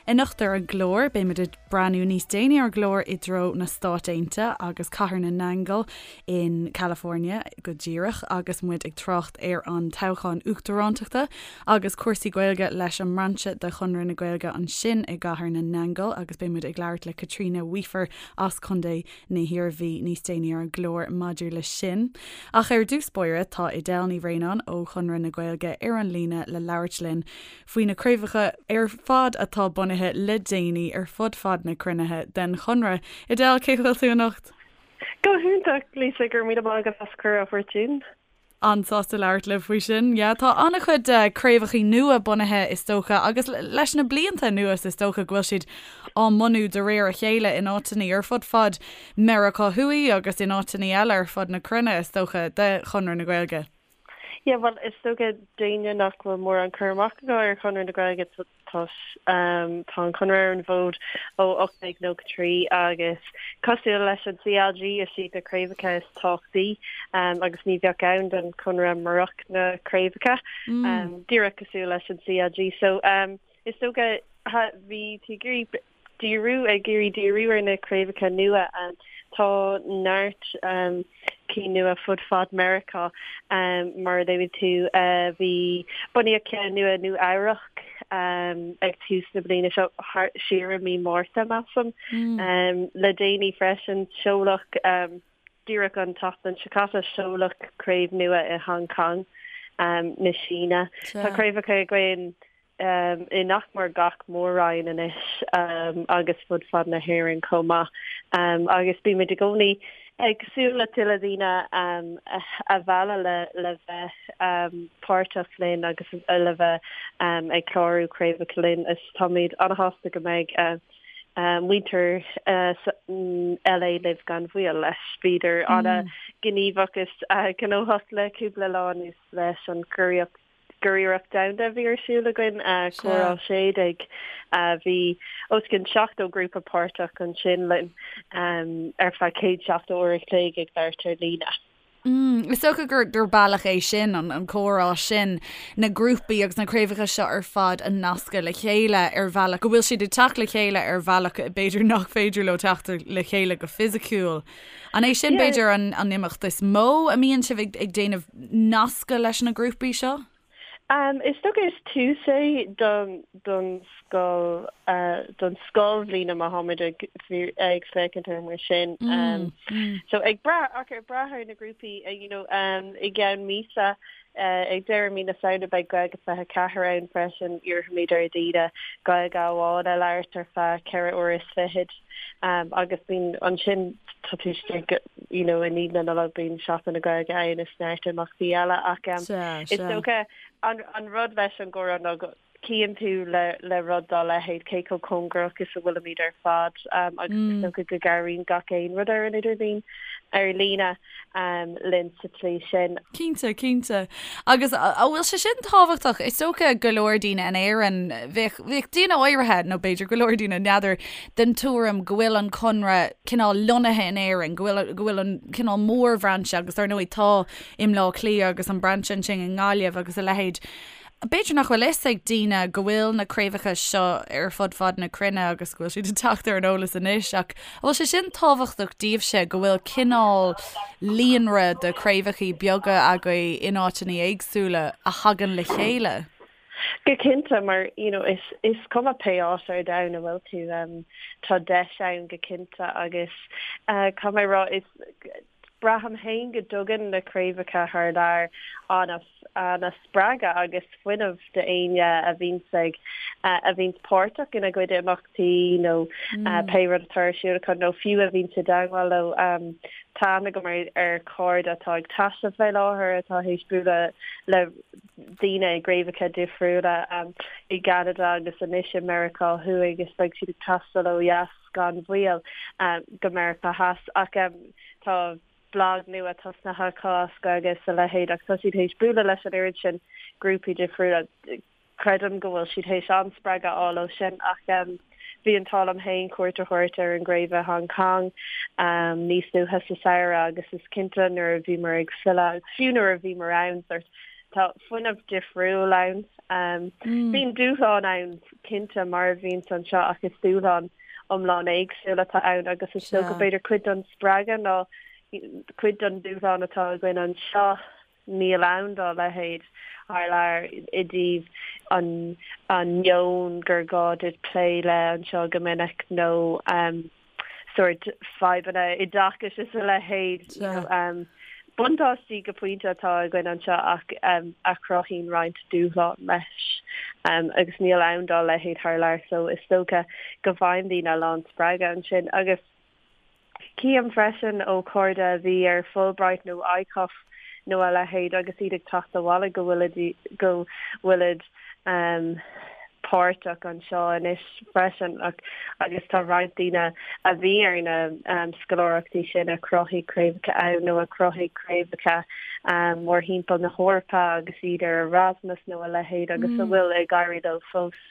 Anocht ar an gclár, beimid ag breathnú níos déanaí ar an gclár i dtreo na Stáit Aontaithe agus Cathair na nAingeal in California go díreach agus muid ag trácht ar an toghchán uachtarántachta agus cúrsaí Gaeilge leis an mbrainse de Chonradh na Gaeilge ansin i gCathair na nAingeal agus beidh muid ag labhairt le Caitríona Weafer as Contae na hIarmhí níos déanaí ar an gclár maidir leis sin. Ach ar dtús báire tá Edel Ní Bhraonáin ó Chonradh na Gaeilge ar an líne le labhairt linn faoi na craobhacha ar fad atá bunaithe le déanaí ar fud fad na cruinne den Chonradh. Edel, cén chaoi a bhfuil tú anocht? Go hiontach, Lisa, go raibh míle maith agat as cuireadh a thabhairt dúinn. An-sásta labhairt libh faoi sin. Yeah, tá an-chuid craobhachaí nua bunaithe is dócha agus leis na blianta anuas is dócha go bhfuil siad á mbunú de réir a chéile in áiteanna ar fud fad Meiriceá Thuaidh agus in áiteanna eile ar fud na cruinne is dócha de Chonradh na Gaeilge. Yeah, bhuel, is dócha d'éinne nach bhfuil mórán cur amach acu ar Chonradh na Gaeilge, tá tá an Conradh ar an bhfód ó 1893 agus cosúil leis an CLG, is iad na craobhacha is tábhachtaí agus ní bheadh ann don Chonradh murach na craobhacha, díreach cosúil leis an CLG. So, is dócha bhí tú ag iarraidh díriú, ag iarraidh díriú ar na craobhacha nua. Tá neart cinn nua fud fad Meiriceá, mar a luaigh tú. Bhí, bunaíodh ceann nua i Nua Eabhrac ag tús na bliana seo, siar i mí Márta, measaim. Le déanaí freisin, seoladh, díreach an tseachtain seo caite, seoladh craobh nua i Hong Kong na Síne. Tá craobhacha againn i nach mór gach mór-roinn anois agus fud fad na hÉireann chomh maith. Agus bímid i gcónaí ag súil le tuilleadh daoine a mhealladh le bheith páirteach linn agus le bheith ag clárú craobhacha linn. Is táimid an-shásta go mbeidh muintir LA libh gan mhoill leis. Bhíodar an-ghníomhach is gnóthach le cúpla lá anuas leis an gcuriarracht Curiarracht Domhanda a bhí ar siúl againn, Comhrá 16. Bhí os cionn 70 grúpa páirteach ansin linn ar feadh 170 uair a chloig ag labhairt ar líne. Is dócha gur bealach é sin, an comhrá sin, na grúpaí agus na craobhacha seo ar fad a nascadh le chéile ar bhealach, go bhfuil siad ag teacht le chéile ar bhealach b'fhéidir nach féidir leo teacht le chéile go fisiciúil. An é sin, b'fhéidir, an imeacht is mó a mbíonn sibh ag déanamh nascadh leis na grúpaí seo? Is dócha is tús é don scoil, don scoilbhliain má tháimid ag féachaint air mar sin. So ag brath, ach ag brath ar na grúpaí, you know, i gceann míosa, Ag deireadh mí na Samhna beidh Gaeilge 24 ann freisin. Iarrfaimid ar dhaoine Gaeilge amháin a labhairt ar feadh 4 uair is fichead agus bíonn ansin tá tú istigh you know i ndiaidh na Nollag bíonn Seachtain na Gaeilge ann is neart imeachtaí eile ach is dócha an rud leis an gcomhrá ná go Chíonn tú le rud dá leithéid cé chomh cóngarach is a bhfuilimid ar fad agus is dócha go gcabhraíonn gach aon rud ar an idirlíon, ar líne, linn sa tslí sin. Cinnte, cinnte. Agus an bhfuil sé sin tábhachtach? Is dócha go leor daoine in Éirinn, bheadh, bheadh daoine áirithe, nó b'fhéidir go leor daoine, n'fheadar, den tuairim go bhfuil an Conradh cineál lonnaithe in Éirinn, go bhfuil, go bhfuil an cineál mórbhrainse agus dar ndóigh tá i mBleá Cliath agus an brainse ansin i nGaillimh agus a leithéid. B'fhéidir nach bhfuil fhios ag daoine go bhfuil na craobhacha seo ar fud fad na cruinne agus go bhfuil siad ag teacht ar an eolas anois ach an bhfuil sé sin tábhachtach daoibhse go bhfuil cineál líonra de chraobhachaí beaga agaibh in áiteanna éagsúla a thagann le chéile? Go cinnte mar you know is is cuma pé áit ar domhan a bhfuil tú um, tá deis ann go cinnte agus uh, caithfidh mé a rá is Braithim féin go dtugann na craobhacha thar lear an-spreagadh agus fuinneamh d'éinne a bhíonns ag, a bhíonns páirteach ina gcuid imeachtaí nó pé rud atá ar siúl acu nó fiú a bhíonns i dteagmháil leo. Tá aithne agam ar chairde atá ag taisteal fé láthair atá théis bualadh le daoine i gcraobhacha difriúla i gCeanada agus anois i Meiriceá Thuaidh agus beidh siad ag taisteal ó dheas. gan mhoill go Meiriceá Theas ach tá blag nua tosnaithe acu as Gaeilge is a leithéid ach tá siad théis bualadh leis an oiread sin grúpaí difriúla. Creidim go bhfuil siad théis an-spreagadh a fháil ó sin ach bhí an t-ádh liom féin cuairt a thabhairt ar an gcraobh i Hong Kong níos luaithe sa samhradh agus is cinnte nuair a bhíomar ag filleadh agus fiú nuair a bhíomar ann sort. Tá fuinneamh difriúil ann. Bíonn dúshlán ann cinnte mar a bhíonns anseo ach is dúshlán iomlán éagsúil atá ann agus is dócha b'fhéidir cuid den spreagadh ná cuid den dúshlán atá againn anseo níl ann dá leithéid thar lear i dtaobh an an meon gur gá duit plé le anseo go minic nó sórt fadhbanna oideachais is a leithéid. Buntáistí go pointe atá againn anseo ach a chruthaíonn roinnt dúshlán leis agus níl ann dá leithéid thar lear so is dócha go bhfaigheann daoine a lán spreagadh ansin agus Cím freisin ó chairde a bhí ar Fulbright nó ICOF nó a leithéid agus iad ag teacht abhaile go bhfuilid go bhfuilid páirteach anseo anois freisin ach agus tá roinnt daoine a bhí ar na scoláireachtaí sin a chruthaigh craobhacha ann nó a chruthaigh craobhacha mórthimpeall na hEorpa agus iad ar Erasmus nó a leithéid agus a bhfuil ag éirí leo fós.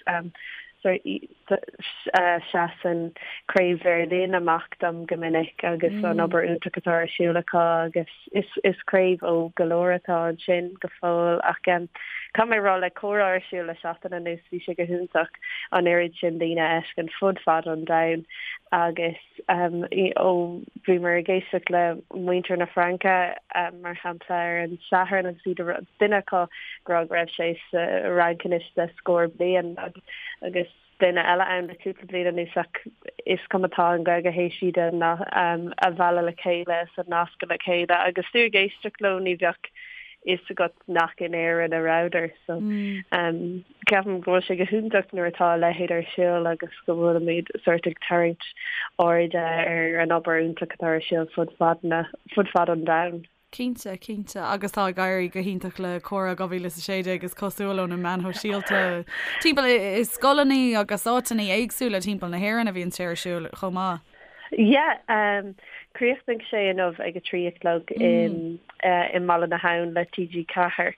Seasann Craobh Bheirlín amach dom go minic agus an obair iontach atá ar siúl acu agus is craobh ó go leor atá ansin go fóill ach caithfidh mé a rá le comhrá ar siúl le seachtain anuas bhí sé go hiontach an oiread sin daoine a fheiscint fud fad an domhain agus ó bhíomar ag éisteacht le muintir na Fraince mar shampla ar an Satharn agus iad a duine acu ag rá go raibh sé sa Fhrainc anois le scór bliain agus duine eile ann le cúpla bliain anuas ach is cuma tá an Ghaeilge théis iad a mhealladh le chéile is a nascadh le chéile agus tú ag éisteacht leo ní bheadh fhios agat nach in Éirinn a rabhadar so ceapaim go bhfuil sé go hiontach nuair atá a leithéid ar siúl agus go bhfuilimid sórt ag tarraingt airde ar an obair iontach atá ar siúl fud fad na fud fad an domhain. Cinnte, cinnte. Agus tá ag éirí go hiontach le Comhrá 2016 is cosúil ó na meáin shóisialta timpeall i scoileanna agus áiteanna éagsúla timpeall na hÉireann a bhíonn sé ar siúl chomh maith. Yeah, um, chríochnaigh sé inniu ag a 3 a chlog in uh, i mBaile na hAbhann le TG4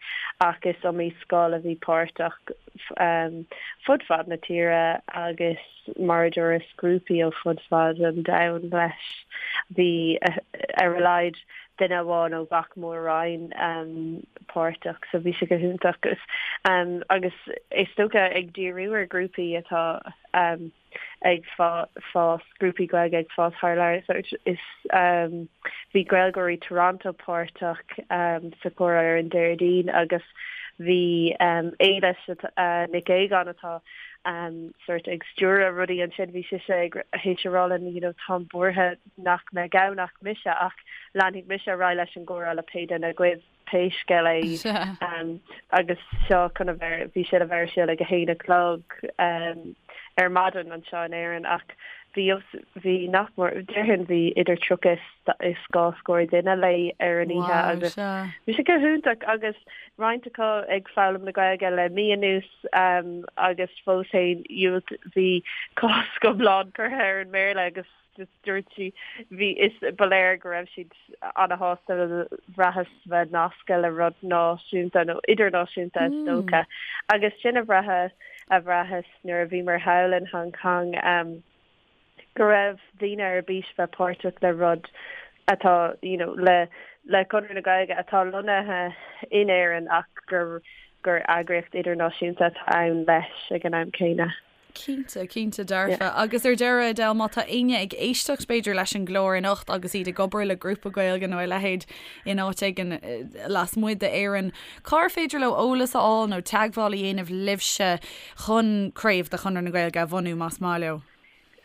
ach is iomaí scoil a bhí páirteach um, fud fad na tíre agus mar a dúras grúpaí ó fud fad an domhain leis. Bhí ar a laghad duine amháin ó gach mór-roinn páirteach so bhí sé go hiontach agus is dócha ag díriú ar ghrúpaí atá ag fás, grúpaí Gaeilge ag fás thar lear. So is bhí Gaeilgeoirí Toronto páirteach sa chomhrá ar an Déardaoin agus bhí Éilis Nic Aogáin atá sórt ag stiúradh rudaí ansin, bhí sise ag théis a rá linn you know táim buartha nach mbeidh ann ach mise ach leanfaidh mise ar aghaidh leis an gcomhrá le pé duine agaibh pé scéal é agus seo chun a bheith bhí sé le bheith ar siúl ag a haon a chlog ar maidin anseo in Éirinn ach bhí bhí nach mór déarfainn bhí idir 30 is dhá scór duine léi ar an oíche agus bhí sé go hiontach agus roinnt acu ag foghlaim na Gaeilge le mí anuas agus fós féin bhí cosc iomlán curtha ar an mBéarla agus just dúirt sí bhí is ba léir go raibh siad ana-shásta bhraitheas bheith nasctha le rud náisiúnta nó idirnáisiúnta is dócha agus sin a bhraithe a bhraitheas nuair a bhíomar thall in Hong Kong go raibh daoine ar bís bheith páirteach le rud atá you know le le Conradh na Gaeilge atá lonnaithe in Éirinn ach gur gur eagraíocht idirnáisiúnta atá ann leis ag an am céanna. Cinnte, cinnte dearfa. Agus ar deireadh, Edel, má tá éinne ag éisteacht b'fhéidir leis an gclár anocht agus iad ag obair le grúpa Gaeilge nó a leithéid in áit éigin lasmuigh d'Éirinn, cár féidir leo eolas a fháil nó teagmháil a dhéanamh libhse chun craobh de Chonradh na Gaeilge a bhunú más maith leo?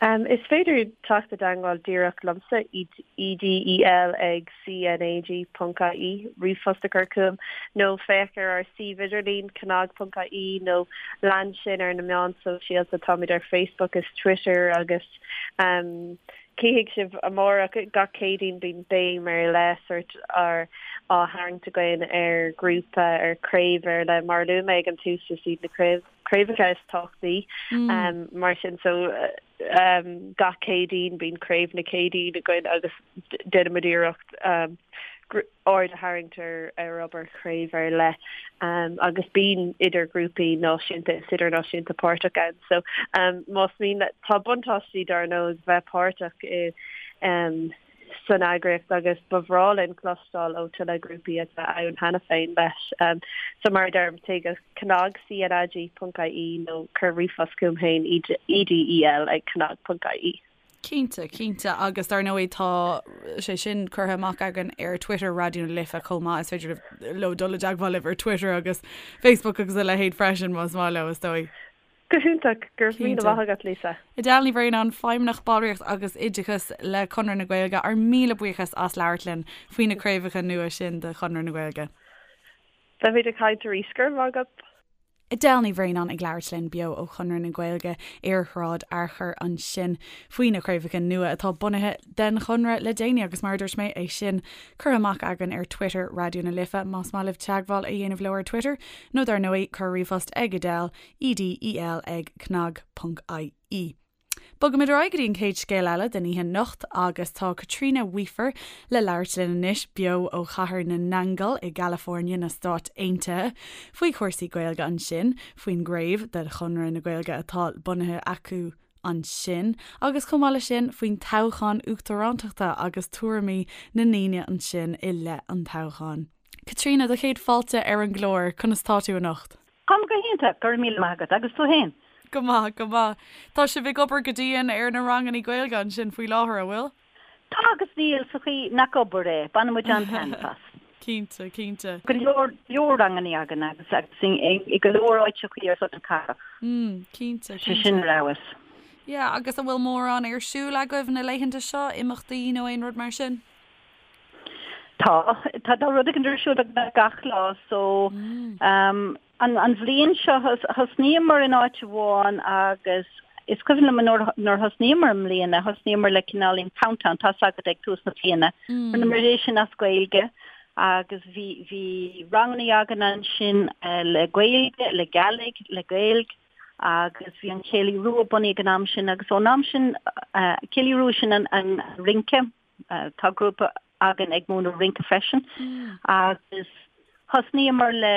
Is féidir teacht i dteagmháil díreach liomsa, EDEL ag cnag ponc ie, ríomhphost a chur chugam, nó féach ar ár suíomh idirlín, cnag ponc ie, nó lean sinn ar na meáin sóisialta, táimid ar Facebook is Twitter agus cífidh sibh amárach, gach Céadaoin bíonn béim ar leith sórt á tharraingt againn ar ghrúpa, ar chraobh ar leith. Mar a luaigh mé ag an tús, is iad na craobhacha is tábhachtaí mar sin so gach Céadaoin bíonn craobh na Céadaoine againn agus déanaimid iarracht aird a tharraingt ar ar obair chraobh ar leith agus bíonn idir grúpaí náisiúnta is idirnáisiúnta páirteach ann so más mian tá buntáistí dar ndóigh bheith páirteach i. san eagraíocht agus ba bhreá linn cloisteáil ó tuilleadh grúpaí atá ann cheana féin leis. So mar a deirim, téigh go cnag, C-N-A-G, ponc ie nó cuir ríomhphost chugam féin, edel ag cnag ponc ie. Cinnte, cinnte, agus dar ndóigh tá sé sin curtha amach againn ar Twitter Raidió na Life chomh maith, is féidir leo dul i dteagmháil libh ar Twitter agus Facebook agus a leithéid freisin más maith leo, is dóigh. Go hiontach, go raibh míle maith agat, Lisa. Edel Ní Bhraonáin, Feidhmeannach Ballraíocht agus Oideachas le Conradh na Gaeilge, ár míle buíochas as labhairt linn faoi na craobhacha nua sin de Chonradh na Gaeilge. Beimid ag caint arís, go raibh maith agat. Edel Ní Bhraonáin ag labhairt linn beo ó Chonradh na Gaeilge ar Shráid Fhearchair ansin faoi na craobhacha nua atá bunaithe den Chonradh le déanaí agus mar a dúirt mé, é sin curtha amach againn ar Twitter Raidió na Life más maith libh teagmháil a dhéanamh leo ar Twitter nó dar ndóigh cuir ríomhphost ag Edel, E-D-E-L ag cnag.ie. Bogaimid ar aghaidh go dtí an chéad scéal eile den oíche anocht agus tá Caitríona Weafer le labhairt linn anois beo ó Chathair na nAingeal i gCalifornia na Stáit Aontaithe faoi chúrsaí Gaeilge ansin, faoin gcraobh de Chonradh na Gaeilge atá bunaithe acu ansin agus chomh maith leis sin faoin toghchán uachtarántachta agus tuairimí na ndaoine ansin i leith an toghcháin. Caitríona, do chéad fáilte ar an gclár, conas tá tú anocht? Táim go hiontach, go raibh míle maith agat. Agus tú fhéin? Go maith, go maith. Tá sibh ag obair go dian ar na rangannaí Gaeilge ansin faoi láthair, an bhfuil? Tá agus níl, sa chaoi nach obair é. Baineann muid an-taitneamh as. Cinnte, cinnte. Go leor, leor rangannaí againn agus agus i go leor áiteachaí ar fud na cathrach. Mm, cinnte, cinnte. Sé sin ar fheabhas. Yeah, agus an bhfuil mórán ar siúl agaibh na laethanta seo, imeachtaí nó aon rud mar sin? Tá, tá tá rud éigin ar siúl beagnach gach lá so um, an, an bhliain seo thosnaíomar in áit amháin agus is cuimhin liom nuair, nuair thosnaíomar i mbliana, thosnaíomar le cineáilín countdown, tá's agat ag tús na bliana. Mm. Rinneamar é sin as Gaeilge agus bhí, bhí rangannaí againn ansin eh, le Gaeilge, le Gàidhlig, le Gaeilg agus bhí an Céilí Rua bunaithe ag an am sin agus ón am sin eh, Céilí Rua sin an, an rince Tá grúpa againn ag múineadh rince freisin agus thosnaíomar le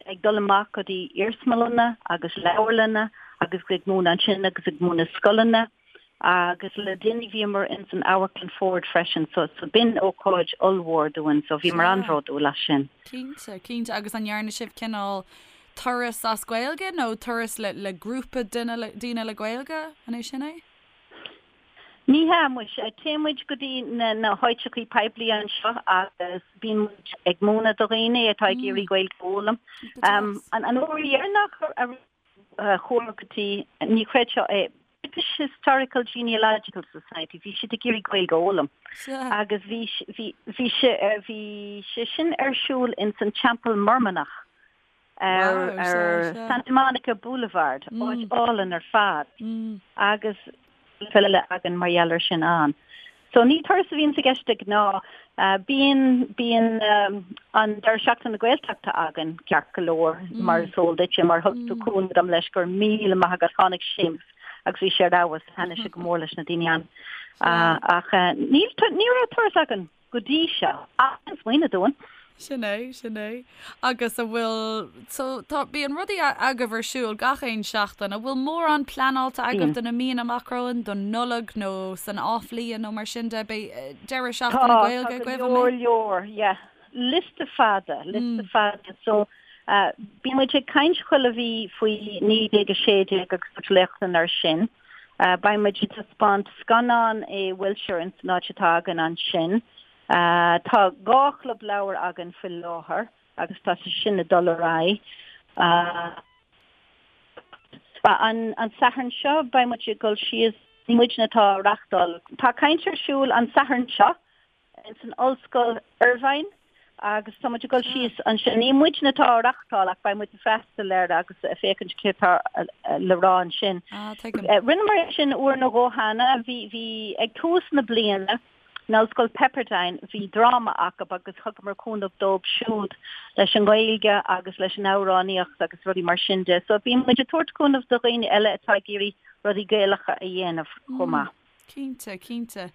ag dul amach go dtí iarsmalanna agus leabharlanna agus ag múineadh ansin agus ag múineadh scoileanna agus le déanaí bhíomar ins an Amharclann Ford freisin so so b'in ócáid ollmhór dúinn so bhíomar an-bhródúil as sin. Cinnte, cinnte agus an ndearna sibh cineál turas as Gaeilge nó turas le le grúpa duine daoine le Gaeilge, an é sin é? Ní hea, muise. Téann muid go dtí na háiteachaí poiblí anseo agus bíonn muid ag múineadh do dhaoine atá ag iarraidh Gaeilge a fhoghlaim. An uair dheireanach a chuamar go dtí, ní chreidfeá é, British Historical Genealogical Society, bhí siad ag iarraidh Gaeilge a fhoghlaim agus bhí bhí bhí sé sin ar siúl ins an Teampall Mormannach. ar Santa Monica Boulevard, áit álainn ar fad, agus file eile againn mar gheall air sin ann. So ní turas a bhíonns i gceist de ghnáth. Bíonn, bíonn an Deireadh Seachtaine na Gaeltachta againn ceart go leor, mar is eol duitse, mar thug tú cúnamh dom leis, go raibh míle maith agat, tháinig Séamus agus bhí sé ar fheabhas, thaitnigh sé go mór leis na daoine ann. Ach níl, ní raibh turas againn. go dtí seo, ach an smaoineamh dúinn. Sin é, sin é. Agus a bhfuil, so tá, bíonn rudaí agaibh ar siúl gach aon seachtain, an bhfuil mórán pleanáilte agaibh do na míonna amach romhainn, don Nollaig nó san athbhliain nó mar sin de, beidh deireadh seachtaine Gaeilge agaibh, an mbeidh? Tá, tá go leor leor, yeah. Liosta fada, liosta fada. So, bíonn muid ag caint chuile mhí faoi 1916 agus tabhairt léachtanna ar sin. Beidh muid ag taispeáint scannán i Wilshire ins an áit atá againn ansin. Tá 2 chlub leabhar againn faoi láthair agus tá sé sin ag dul ar aghaidh. An Satharn seo beidh muid ag dul síos, ní muidne atá á reachtáil, tá caint ar siúl an Satharn seo ins an Ollscoil Irvine agus tá muid ag dul síos ansin. Ní muidne atá á reachtáil ach beidh muid ag freastal air agus ag féachaint céard atá le rá ansin. Ah, tuigim. Rinneamar é sin uair nó dhó cheana. Bhí, bhí, ag tús na bliana, in Ollscoil Pepperdine, bhí dráma acu agus thugamar cúnamh dóibh siúd leis an nGaeilge agus leis an amhránaíocht agus rudaí mar sin de. So bíonn muid ag tabhairt cúnamh do dhaoine eile atá ag iarraidh rudaí Gaelacha a dhéanamh chomh maith. Cinnte, cinnte.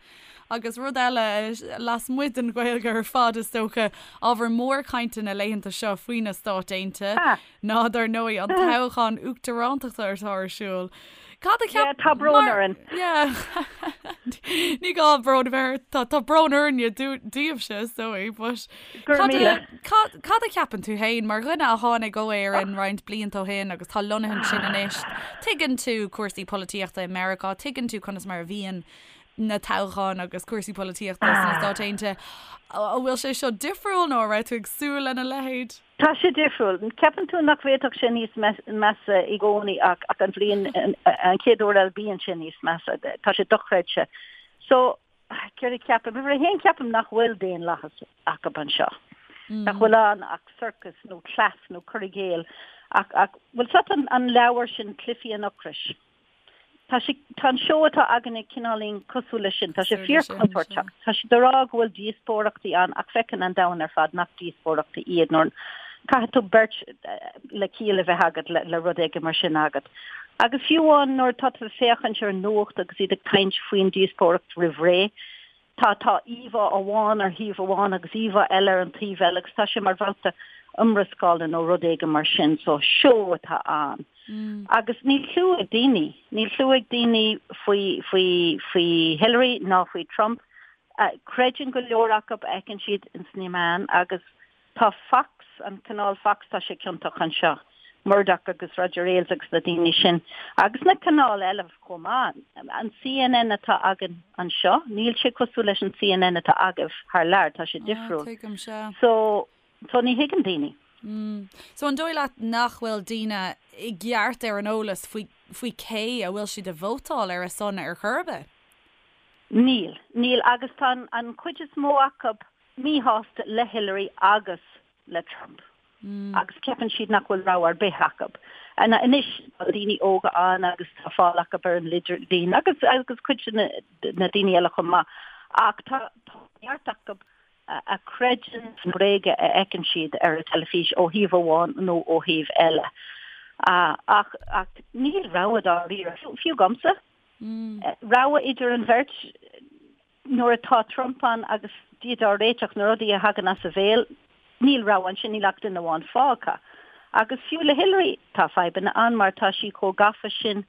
Agus rud eile, lasmuigh den Ghaeilge ar fad is dócha, ábhar mór cainte na laethanta seo faoi na Stáit Aontaithe ná, dar ndóigh, an toghchán uachtarántachta atá ar siúl. Cad a cheap... Tá brón orainn. Yeah. Ní gá brón a bheith ort, tá tá brón orainne daoibhse is dóigh, but Go raibh cad a míle. cad cad a cheapann tú féin mar dhuine a tháinig ó Éirinn roinnt blianta ó shin agus tá lonnaithe ansin anois, tuigeann tú cúrsaí polaitíochta i Meiriceá, tuigeann tú conas mar a bhíonn na toghcháin agus cúrsaí polaitíochta sna Stáit Aontaithe. An bhfuil sé seo difriúil nó an raibh tú ag súil lena leithéid? Tá sé difriúil. Ceapann tú nach bhféadfadh sé níos measa i gcónaí ach ach an bhliain, an chéad uair eile bíonn sé níos measa. Tá sé dochreidte. So, céard a cheapaim? Uimhir a haon ceapaim nach bhfuil daonlathas acu anseo. Nach bhfuil ann ach sorcas nó cleas nó cur i gcéill. Ach, ach, bhfuil 's agat an, an leabhar sin Cluichí an Ocrais? Tá sé, tá an seó atá againne cineáilín cosúil leis sin. Tá sé fíorchontúirteach. Tá siad ag rá go bhfuil díospóireachtaí ann ach feiceann an domhan ar fad nach díospóireachtaí iad nuair caithfidh tú beirt le ciall a bheith agat le, le rud éigin mar sin agat. Agus fiú amháin nuair atá tú ag féachaint ar an nuacht agus iad ag caint faoin díospóireacht roimh ré, Tá, tá íomhá amháin ar thaobh amháin agus íomhá eile ar an taobh eile agus tá sé mar bhabhta iomrascála nó rud éigin mar sin, so seó atá ann. Agus níl cliú ag daoine, níl cliú ag daoine faoi, faoi, faoi Hillary ná faoi Trump. Creideann go leor acu a fheiceann siad ins na meáin agus Tá Fox, an canáil Fox, tá sé ciontach anseo, Murdoch agus Roger Ailes agus na daoine sin, agus na canáil eile chomh maith. An CNN atá againn anseo, níl sé cosúil leis an CNN atá agaibh thar lear, tá sé difriúil. Tuigim, sea. So, so ní thuigeann daoine. So an dóigh leat nach bhfuil daoine i gceart ar an eolas faoi, faoi cé a bhfuil siad ag vótáil ar a son ar chor ar bith? Níl, níl agus tá an, an chuid is mó acu míshásta le Hillary agus le Trump agus ceapann siad nach bhfuil rogha ar bith acu. Anois tá daoine óga ann agus tá fáil acu ar an idirlíon agus agus cuid de na daoine eile chomh maith ach tá neart acu a chreideann na bréaga a fheiceann siad ar an teilifís ó thaobh amháin nó ó thaobh eile. Ach ach níl rogha dáiríre, fiú agamsa. Rogha idir an bheirt Nuair atá Trump ann agus Dia dár réiteach, na rudaí a thagann as a bhéal, níl rogha ansin, níl ach duine amháin fágtha. Agus fiú le Hillary, tá fadhbanna ann mar tá sí chomh gafa sin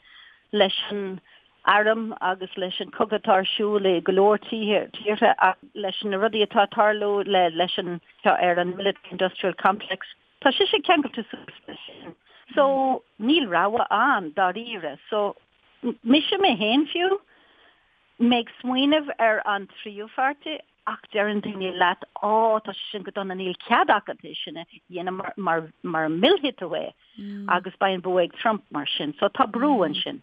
leis an arm agus leis an cogadh atá ar siúl i go leor tíortha ach leis na rudaí atá ag tarlú le leis an ar an military industrial complex, tá sise ceangailte suas leis sin. So níl rogha ann dáiríre. So mise mé féin fiú, Mé ag smaoineamh ar an tríú pháirtí ach deireann daoine leat á tá sé sin go dona níl cead agat é sin a dhéanamh mar mar mar millfidh tú é agus beidh an bua ag Trump mar sin so tá brú ansin.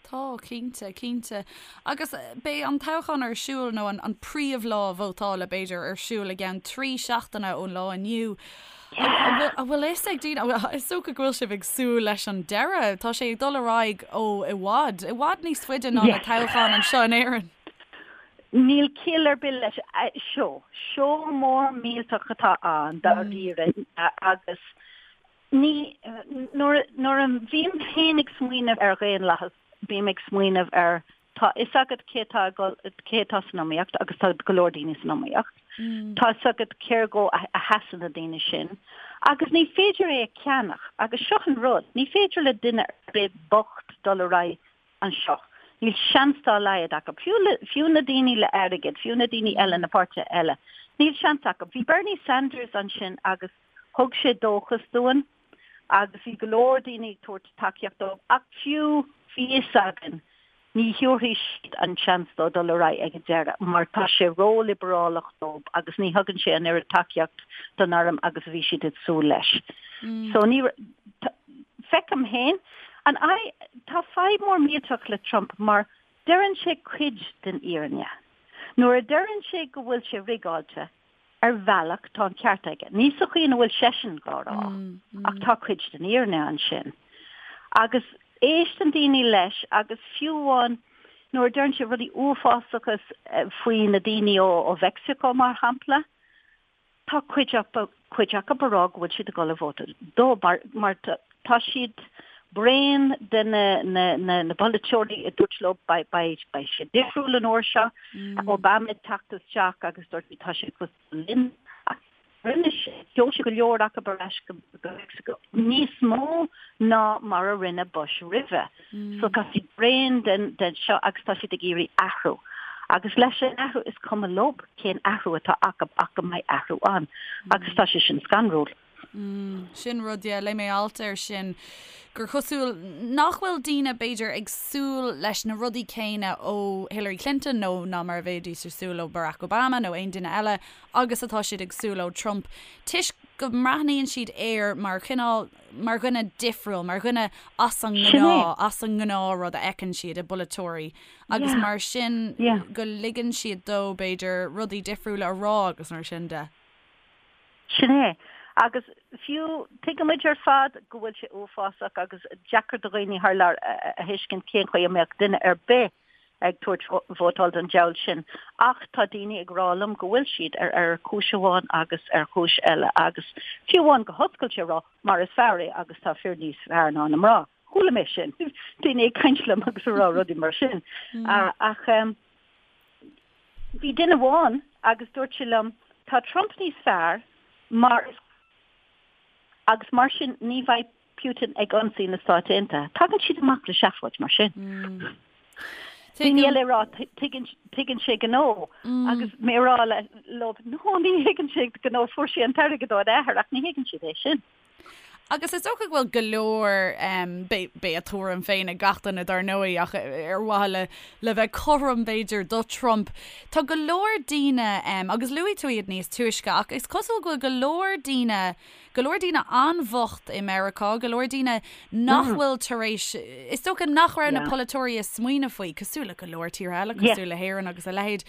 Tá, cinnte, cinnte. Agus beidh an toghchán ar siúl nó an an príomhlá vótála b'fhéidir ar siúl i gceann 3 seachtaine ón lá inniu. An bhfuil fhios ag daoine, is dócha go bhfuil sibh ag súil leis an deireadh, tá sé ag dul ar aghaidh ó i bhfad, i bhfad níos faide ná na toghcháin anseo in Éirinn. Níl ciall ar bith leis. Seó, seó mór millteach atá ann dáiríre agus ní, nuair, nuair a bhím féin ag smaoineamh ar dhaonlathas, bím ag smaoineamh ar Tá fhios agat cé atá ag dul, cé atá san iomaíocht agus tá go leor daoine san iomaíocht. Tá fhios agat cér dhó a sheasann na daoine sin agus ní féidir é a cheannach agus seo an rud, ní féidir le duine ar bith bocht dul ar aghaidh anseo. Níl seans dá laghad acu. Fiú le, fiú na daoine le airgead, fiú na daoine eile, na páirtithe eile, níl seans acu. Bhí Bernie Sanders ansin agus thug sé dóchas dúinn agus bhí go leor daoine ag tabhairt tacaíocht dó ach fiú bhí fhios againn ní thabharfaidh siad an seans dó dul ar aghaidh ag an deireadh mar tá sé ró-liobrálach dóibh agus ní thugann sé an oiread tacaíocht don arm agus a bhí siad ag súil leis. So ní feicim féin an tá fadhb mór millteach le Trump mar deireann sé cuid den fhírinne. Nuair a deireann sé go bhfuil sé rigeáilte, Ar bhealach, tá an ceart aige. Ní sa chaoi ina bhfuil seisean dhá rá, ach tá cuid den fhírinne ansin. Agus éisteann daoine leis agus fiú amháin nuair a deireann sé rudaí uafásacha faoi na daoine ó Mheicsiceo, mar shampla, tá cuid acu cuid acu ag rá go bhfuil siad ag dul a vótáil dó mar mar tá siad bréan de na na na na polaiteoirí a dúirt leo beidh beidh beidh sé difriúil an uair seo, Obama ag teacht isteach agus dúirt tá sé cosúil linn. rinne sé, sheol sé go leor acu ar ais go Meicsiceo, níos mó ná mar a rinne Bush roimhe. So tá siad bréan den den seo agus tá siad ag iarraidh athrú. Agus leis an athrú is cuma leo cén athrú atá acu ach go mbeidh athrú ann. Agus tá sé sin scanrúil. Sin rud, yeah, léigh mé alt air sin, gur chosúil nach bhfuil daoine, b'fhéidir, ag súil leis na rudaí céanna ó Hillary Clinton nó ná mar a bheidís ag súil ó Barack Obama nó aon duine eile agus atá siad ag súil ó Trump toisc go mbreathnaíonn siad air mar chineál, mar dhuine difriúil, mar dhuine as an ngnáth, as an ngnáthrud a fheiceann siad i bpolaiteoirí agus mar sin go ligeann siad dó, b'fhéidir, rudaí difriúla a rá agus mar sin de. Sin é. Agus fiú, tuigimid ar fad go bhfuil sé uafásach agus deacair do dhaoine thar lear a thuiscint cén chaoi a mbeadh duine ar bith ag tabhairt vótáil don diabhal sin. Ach tá daoine ag rá liom go bhfuil siad ar ar chúis amháin agus ar chúis eile agus fiú amháin go hoscailte ag rá mar is fear é agus tá fir níos fearr ná na mná. Chuala mé sin. Daoine ag caint liom agus ag rá rudaí mar sin. Ach bhí duine amháin agus dúirt sé liom, tá Trump níos fearr mar is agus mar sin ní bheidh Putin ag ionsaí na Stáit Aontaithe. Tagann siad amach le seafóid mar sin. Daoine eile ag rá tuigeann sé gnó agus mé ag rá leo no ní thuigeann sé gnó fuair sé an t-airgead óna athair ach ní thuigeann siad é sin. Agus is dócha go bhfuil go leor, beidh a tuairim féin ag gach duine dar ndóigh, ach ar mhaithe le le bheith cothrom b'fhéidir do Trump, tá go leor daoine, agus luaigh tú iad níos túisce, ach is cosúil go bhfuil go leor daoine, go leor daoine an-bhocht i Meiriceá, go leor daoine nach bhfuil tar éis, is dócha nach raibh na polaiteoirí ag smaoineamh faoi, cosúil le go leor tíortha eile, cosúil le hÉirinn agus a leithéid.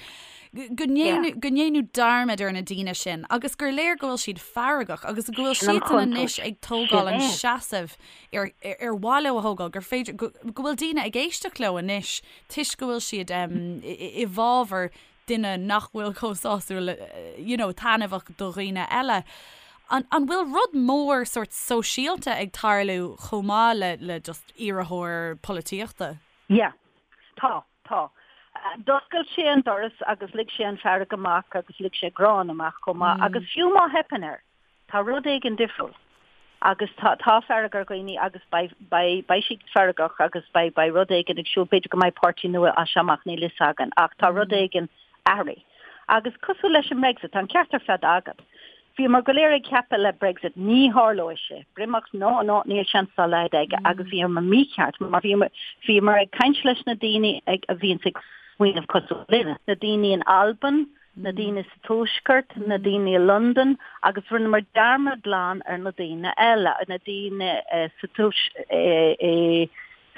go ndéanadh dearmad ar na daoine sin agus gur léir go bhfuil siad feargach agus go bhfuil siadsan anois ag tógáil an seasamh ar ar mhaith leo a thógáil, gur féidir, go bhfuil daoine ag éisteacht leo anois toisc go bhfuil siad i bhfabhar duine nach bhfuil chomh sásúil, you know, taitneamhach do dhaoine eile. An an bhfuil rud mór sórt sóisialta ag tarlú chomh maith le le just iarrthóir polaitíochta? Yeah. Tá. Tá. D'oscail sé an doras agus lig sé an fearg amach agus lig sé gráin amach chomh maith agus fiú má theipeann air, tá rud éigin difriúil agus tá, tá fearg ar dhaoine agus beidh, beidh, beidh siad feargach agus beidh, beidh rud éigin ag siúl, b'fhéidir go mbeidh páirtí nua as seo amach, níl fhios againn ach tá rud éigin athraithe. Agus cosúil leis an mBrexit, tá an ceart ar fad agat. Bhíomar go léir ag ceapadh le Brexit, ní tharlóidh sé. Breatimeacht, no, no, níl seans dá laghad aige agus bhíomar mícheart mar bhíomar, bhíomar ag caint leis na daoine ag, a bhíonns ag smaoineamh cosúil linne, na daoine in Albain, na daoine sa Tuaisceart, na daoine i Londain agus rinneamar dearmad glan ar na daoine eile, na daoine sa tuais,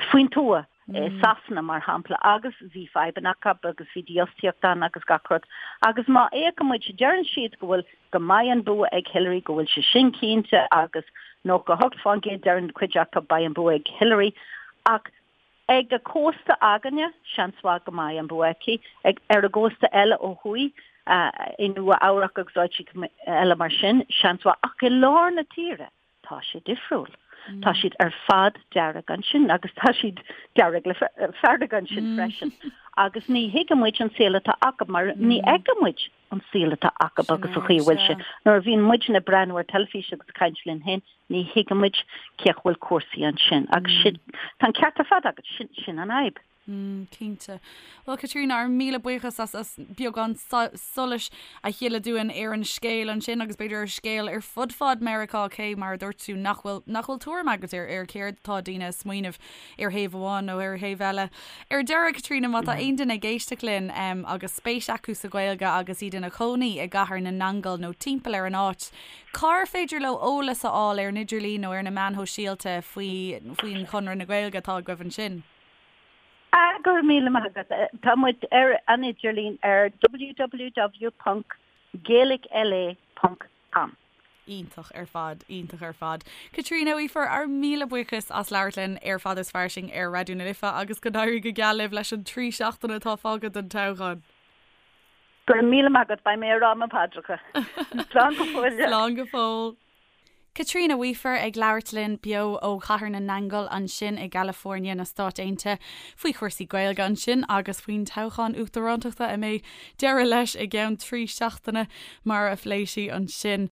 faoin tuath. i Sasana, mar shampla, agus bhí fadhbanna acu agus bhí dífhostaíocht ann agus gach rud. Agus má fhéachann muid, deireann siad go bhfuil, go mbeidh an bua ag Hillary, go bhfuil sé sin cinnte agus 98% deireann cuid acu beidh an bua ag Hillary. Ach ag an gcósta againne, seans mhaith go mbeidh an bua aici. Ag, ar an gcósta eile ó thuaidh, i Nua Eabhrac agus áiteacha eile mar sin, seans mhaith. Ach i lár na tíre, Tá sé difriúil. Tá siad ar fad dearg ansin agus tá siad dearg le fearg ansin freisin. Agus ní thuigeann muid an saol atá acu mar ní fheiceann muid an saol atá acu agus an chaoi a bhfuil sé. Nuair a bhíonn muidne ag breathnú ar teilifís agus ag caint linn féin, ní thuigeann muid cén chaoi a bhfuil cúrsaí ansin. Agus sin, tá an ceart ar fad agat, sin, sin an fhadhb. Mm, cinnte. Bhuel, Caitríona, ár míle buíochas as as beagán solais a shileadh dúinn ar an scéal ansin agus b'fhéidir ar scéal ar fud fad Meiriceá cé mar a dúirt tú nach bhfuil nach bhfuil tuairim agat ar ar céard atá daoine ag smaoineamh ar thaobh amháin nó ar thaobh eile. Ar deireadh, Caitríona, má tá aon duine ag éisteacht linn um, agus spéis acu sa Ghaeilge agus iad ina chónaí i gCathair na nAingeal nó timpeall ar an áit, cár féidir leo eolas a fháil ar an idirlíon nó ar na meáin shóisialta faoi faoin Chonradh na Gaeilge atá agaibh ansin? Ah, go raibh míle maith agat. Tá muid ar an idirlíon ar www.gaelicla.com. Iontach ar fad, iontach ar fad. Caitríona Weafer, ár míle buíochas as labhairt linn ar Fada is Fairsing ar Raidió na Life agus go n-éirí go geal libh leis an 3 seachtaine atá fágtha don toghchán. Go raibh míle maith agat, beidh mé ag rá mo phaidreacha. Slán go fóill. Slán go fóill. Caitríona Weafer ag labhairt linn beo ó Chathair na nAingeal ansin i gCalifornia na Stáit Aontaithe faoi chúrsaí Gaeilge ansin agus faoin toghchán uachtarántachta a mbeidh deireadh leis i gceann 3 seachtaine mar a phléigh sí ansin.